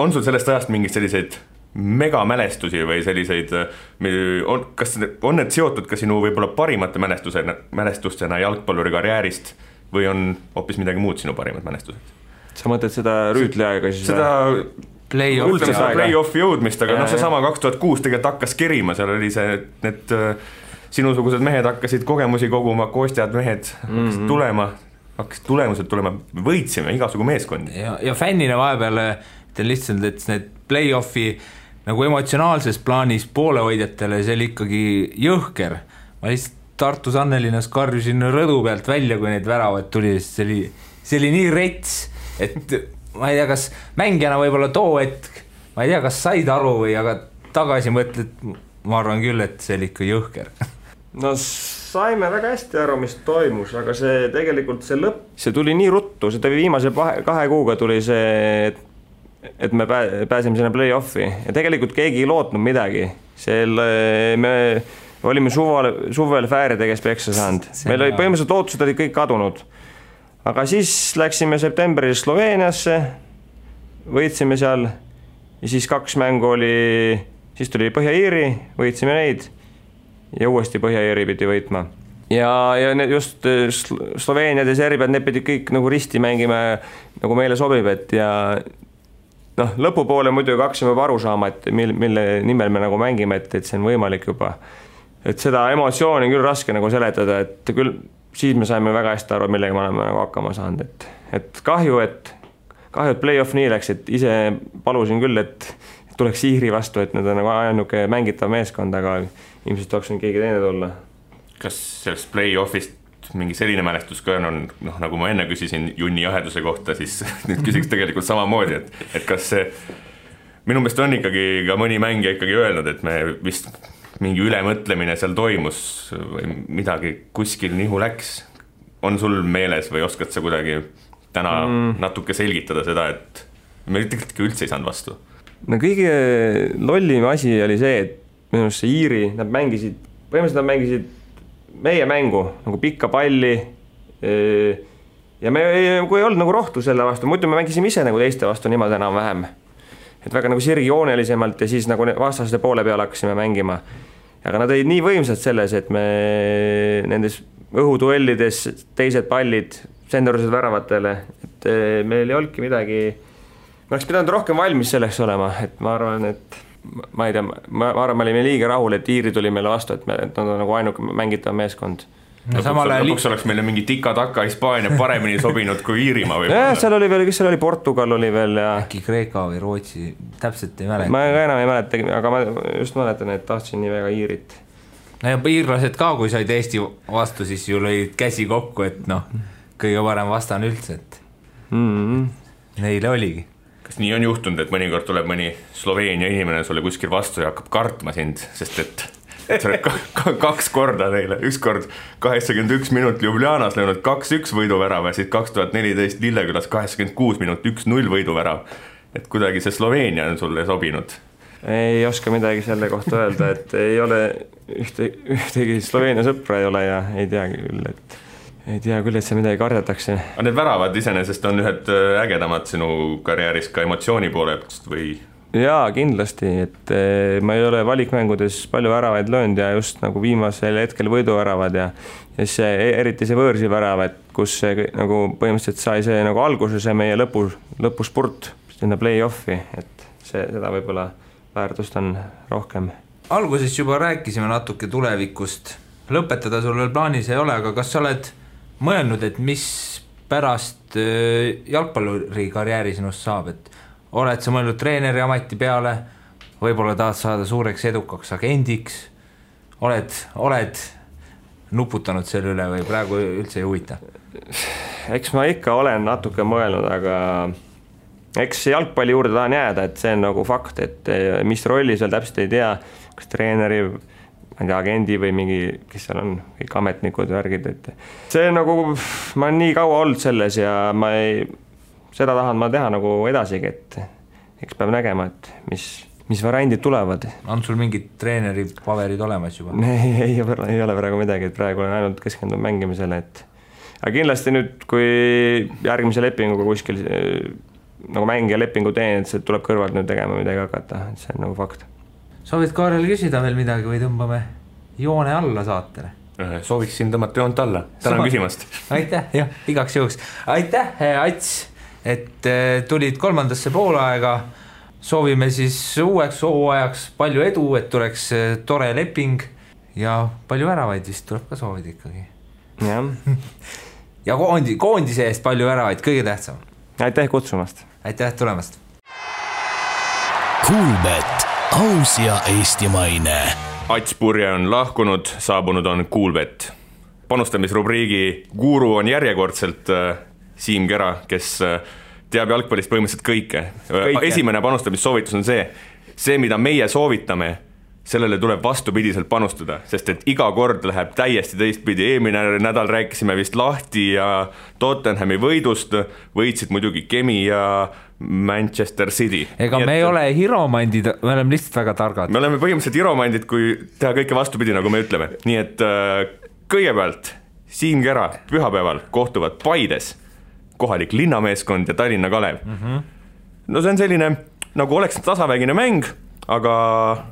on sul sellest ajast mingid selliseid megamälestusi või selliseid, kas on need seotud ka sinu võib-olla parimate mälestustena jalgpalluri karjäärist või on hoopis midagi muud sinu parimad mälestused? Sa mõtled seda rüütliaega siis? Seda play-offi jõudmist, aga see sama 2006 tegelikult hakkas kerima, seal oli see, need sinusugused mehed hakkasid kogemusi koguma, Kostjad mehed hakkasid hakkasid tulemused tulema, võitsime igasugu meeskondi. Ja fännina vahepeal ütlen lihtsalt, et need play-offi nagu emotsionaalses plaanis poolehoidjatele, see oli ikkagi jõhker. Ma lihtsalt Tartus Annelinnas karjusin rõdu pealt välja, kui neid väravad tuli, see oli nii rets, et ma ei tea, kas mängijana võib-olla too hetk, ma ei tea, kas said aru või, aga tagasi mõtled, ma arvan küll, et see oli ikka jõhker. No saime väga hästi aru, mis toimus, aga see tegelikult see lõpp, see tuli nii ruttu, see tuli viimase 2 kuuga tuli see, et me pääsime sinna play-offi ja tegelikult keegi ei lootnud midagi. Me olime suvel fääridega kes peksa saanud. Meil oli põhimõtteliselt lootused olid kõik kadunud. Aga siis läksime septembris Sloveeniasse, võitsime seal ja siis 2 mängu oli, siis tuli Põhja-Iiri, võitsime neid ja uuesti Põhja-Iiri pidi võitma. ja just Sloveeniad ja Serbiad, need pidid kõik nagu risti mängima nagu meile sobib, et ja noh, lõpupoole muidugi hakkasime juba aru saama, et mille nimel me nagu mängime, et see on võimalik juba. Et seda emotsiooni küll raske nagu seletada, et küll siis me saime väga hästi aru, millega me oleme nagu hakkama saanud, et kahju, et play-off nii läks, et ise palusin küll, et tuleks Iiri vastu, et need on nagu ainuke mängitav meeskond, aga ilmselt tuleks keegi teine tulla. Kas sellest play-offist mingi selline mälestus ka on, noh, nagu ma enne küsisin Junni jaheduse kohta, siis nüüd küsiks tegelikult samamoodi, et kas see, minu meelest on ikkagi ka mõni mängija ikkagi öelnud, et me vist mingi ülemõtlemine seal toimus või midagi kuskil nihu läks. On sul meeles või oskad sa kuidagi täna natuke selgitada seda, et me tegelikult üldse ei saanud vastu? No kõige lollim asi oli see, et minu arust see Iiri, nad mängisid meie mängu nagu pikka palli ja me kui ei olnud nagu rohtu selle vastu, muidu me mängisime ise nagu teiste vastu niimoodi enam vähem. Et väga nagu sirgjoonelisemalt ja siis nagu vastaste poole peale hakkasime mängima. Aga nad olid nii võimsad selles, et me nendes õhuduellides teised pallid sendorised väravatele, et meil ei olnudki midagi, me oleks pidanud rohkem valmis selleks olema, et ma arvan, et ma ei tea, ma arvan, me olime liiga rahul, et Iiri tuli meile vastu, et nad on nagu ainuke mängitav meeskond. Lõpuks oleks meile mingi tika-taka Hispaania paremini sobinud kui Iirimaa või? Seal oli veel, kes seal oli, Portugal oli veel ja äkki Kreeka või Rootsi, täpselt ei mäleta. Ma enam ei mäleta, aga ma just mäletan, et tahtsin nii väga Iirit. No ja iirlased ka, kui said Eesti vastu, siis ju lõid käsi kokku, et noh, kõige parem vastan üldse, et neile oligi. Kas nii on juhtunud, et mõnikord tuleb mõni Sloveenia inimene sulle kuskil vastu ja hakkab kartma sind, sest et sa oled 2 korda neile, üks kord 81 minut Ljubljanas löönud 2-1 võiduvärava ja siis 2014 Lillekülas 86 minut 1-0 võiduvärav. Et kuidagi see Sloveenia on sulle sobinud? Ei oska midagi selle kohta öelda, et ei ole ühtegi Sloveenia sõpra ei ole ja ei tea küll, et see midagi kardetakse. Aga need väravad iseenesest on ühed ägedamad sinu karjääris ka emotsiooni poolest või? Jaa, kindlasti, et ma ei ole valikmängudes palju väravaid löönud ja just nagu viimasel hetkel võiduväravad ja see, eriti see võõrsi värav, et kus see nagu põhimõtteliselt sai see nagu alguses ja meie lõpuspurt sinna play-offi, et seda võib-olla väärtust on rohkem. Alguses juba rääkisime natuke tulevikust, lõpetada sul veel plaanis ei ole, aga kas sa oled mõelnud, et mis pärast jalgpalluri karjääri sinust saab, et oled sa mõelnud treeneri ameti peale, võib-olla tahad saada suureks edukaks agendiks, oled nuputanud selle üle või praegu üldse ei huvita? Eks ma ikka olen natuke mõelnud, aga eks jalgpalli juurde tahan jääda, et see on nagu fakt, et mis rolli seal täpselt ei tea, kas treeneri agendi või mingi, kes seal on, kõik ametnikud värgid, et see nagu, ma olen nii kaua olnud selles ja seda tahan ma teha nagu edasigi, et eks peab nägema, et mis variandid tulevad. On sul mingid treeneri paverid olemas juba? Ei ole praegu midagi, et praegu olen ainult keskendunud mängimisele, et aga kindlasti nüüd, kui järgmise lepinguga kuskil nagu mängija lepingu teen, et see tuleb kõrvalt nüüd tegema midagi hakata, et see on nagu fakt. Soovid Kaarel küsida veel midagi või tõmbame joone alla saatele? Sooviksin tõmmata joont alla. Tänan küsimast. Aitäh, jah, igaks juhuks. Aitäh, Ats, et tulid 3. poolaega. Soovime siis uueks hooajaks palju edu, et tuleks tore leping ja palju väravaid vist tuleb ka soovida ikkagi. Ja koondise eest palju väravaid, kõige tähtsam. Aitäh kutsumast. Aitäh tulemast. Kuulbet, aus ja eestimaine. Ats Purje on lahkunud, saabunud on Kuulbet. Panustamisrubriigi guru on järjekordselt Siim Kera, kes teab jalgpallist põhimõtteliselt kõike. Esimene panustamissoovitus on see, mida meie soovitame, sellele tuleb vastupidiselt panustada, sest et iga kord läheb täiesti teistpidi. Eelmine nädal rääkisime vist Lahti ja Tottenhami võidust, võitsid muidugi Kemi ja Manchester City. Ega me ei ole hiromandid, me oleme lihtsalt väga targad. Me oleme põhimõtteliselt hiromandid, kui teha kõike vastupidi, nagu me ütleme. Nii et kõigepealt Siim Kera pühapäeval kohtuvad Paides, kohalik linnameeskond ja Tallinna Kalev. No see on selline, nagu oleks tasavägine mäng, aga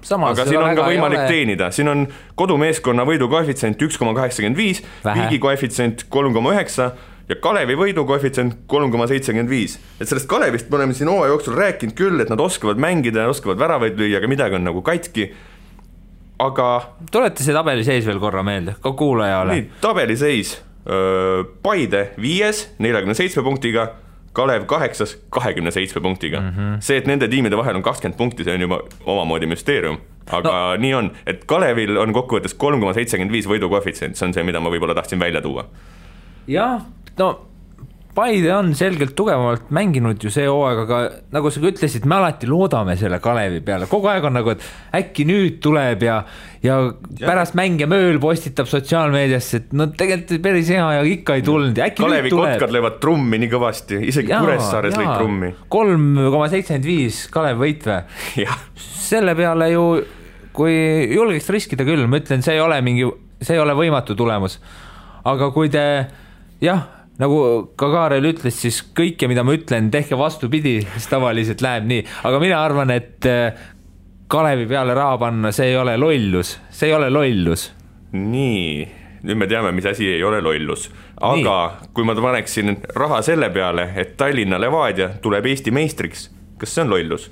siin on ka võimalik teenida, siin on kodumeeskonna võidu koefitsient 1,85, Viigi koefitsient 3,9 ja Kalevi võidu koefitsient 3,75. Et sellest Kalevist me oleme siin hooaja jooksul rääkinud küll, et nad oskavad mängida ja oskavad väravaid lüüa, aga midagi on nagu katki. Aga tulete see tabeliseis veel korra meelde, ka kuulajale. Nii, tabeliseis. Paide 5, 47 punktiga, Kalev 8, 27 punktiga. See, et nende tiimide vahel on 20 punkti, see on juba omamoodi müsteerium. Aga nii on, et Kalevil on kokkuvõttes 3,75 võidu koefitsient, see on see, mida ma võib-olla tahtsin välja tuua. Jah, no Paide on selgelt tugevamalt mänginud ju see hooaeg, aga nagu sa ütlesid, me alati loodame selle Kalevi peale. Kogu aeg on nagu, et äkki nüüd tuleb ja pärast mänge mööl postitab sotsiaalmeediasse, et no tegelikult päris hea ja ikka ei tulnud. Kalevi kotkad löövad trummi nii kõvasti, isegi Kuressaares lõid trummi. 3,75 Kalev võitve. Selle peale ju, kui julgeks riskida küll, ma ütlen, see ei ole võimatu tulemus. Aga kui te, nagu ka Kaarel ütles, siis kõike, mida ma ütlen, tehke vastupidi, siis tavaliselt läheb nii. Aga mina arvan, et Kalevi peale raha panna, see ei ole lollus. See ei ole lollus. Nii, nüüd me teame, mis asi ei ole lollus. Aga kui ma paneksin raha selle peale, et Tallinna Levadia tuleb Eesti meistriks, kas see on lollus?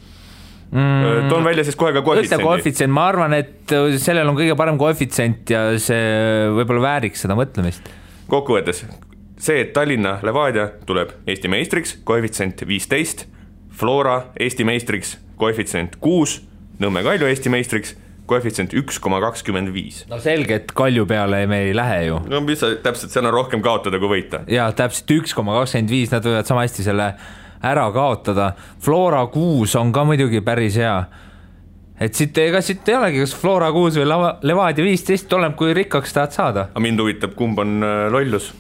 Toon välja siis kohe ka koefitsient. Ma arvan, et sellel on kõige parem koefitsient ja see võib-olla vääriks seda mõtlemist. Kokkuvõttes, see, et Tallinna Levadia tuleb Eesti meistriks, koefitsient 15, Flora Eesti meistriks, koefitsient 6, Nõmme Kalju Eesti meistriks, koefitsient 1,25. No selge, et Kalju peale me ei lähe ju. No mis täpselt, seal on rohkem kaotada kui võita. Ja täpselt 1,25, nad võivad sama hästi selle ära kaotada. Flora 6 on ka muidugi päris hea. Et siit ei olegi, kas Flora 6 või Levadia 15, oleneb kui rikkaks tahad saada. Aga mind huvitab, kumb on lollus?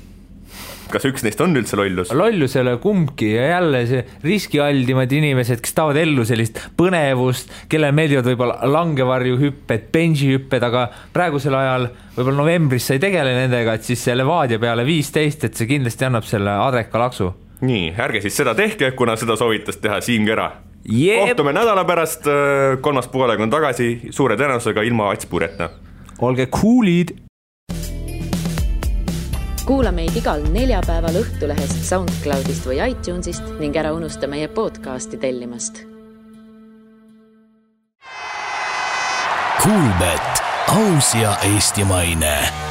Kas üks neist on üldse lollus? Lollusele kumbki ja jälle see riskialdimad inimesed, kes tahavad ellu sellist põnevust, kelle meeldivad võib-olla langevarjuhüpped, benchihüpped, aga praegusel ajal võib-olla novembris sa ei tegele nendega, et siis see Levadia peale 15, et see kindlasti annab selle adreka laksu. Nii, ärge siis seda tehke, kuna seda soovitas teha Siim Kera. Kohtume nädala pärast, 3. poolega on tagasi, suure tõenäosusega ilma Atspureta. Olge coolid! Kuula meid igal neljapäeval Õhtulehest, SoundCloudist või iTunesist ning ära unusta meie podcasti tellimast. Kuulbet, aus ja eestimaine.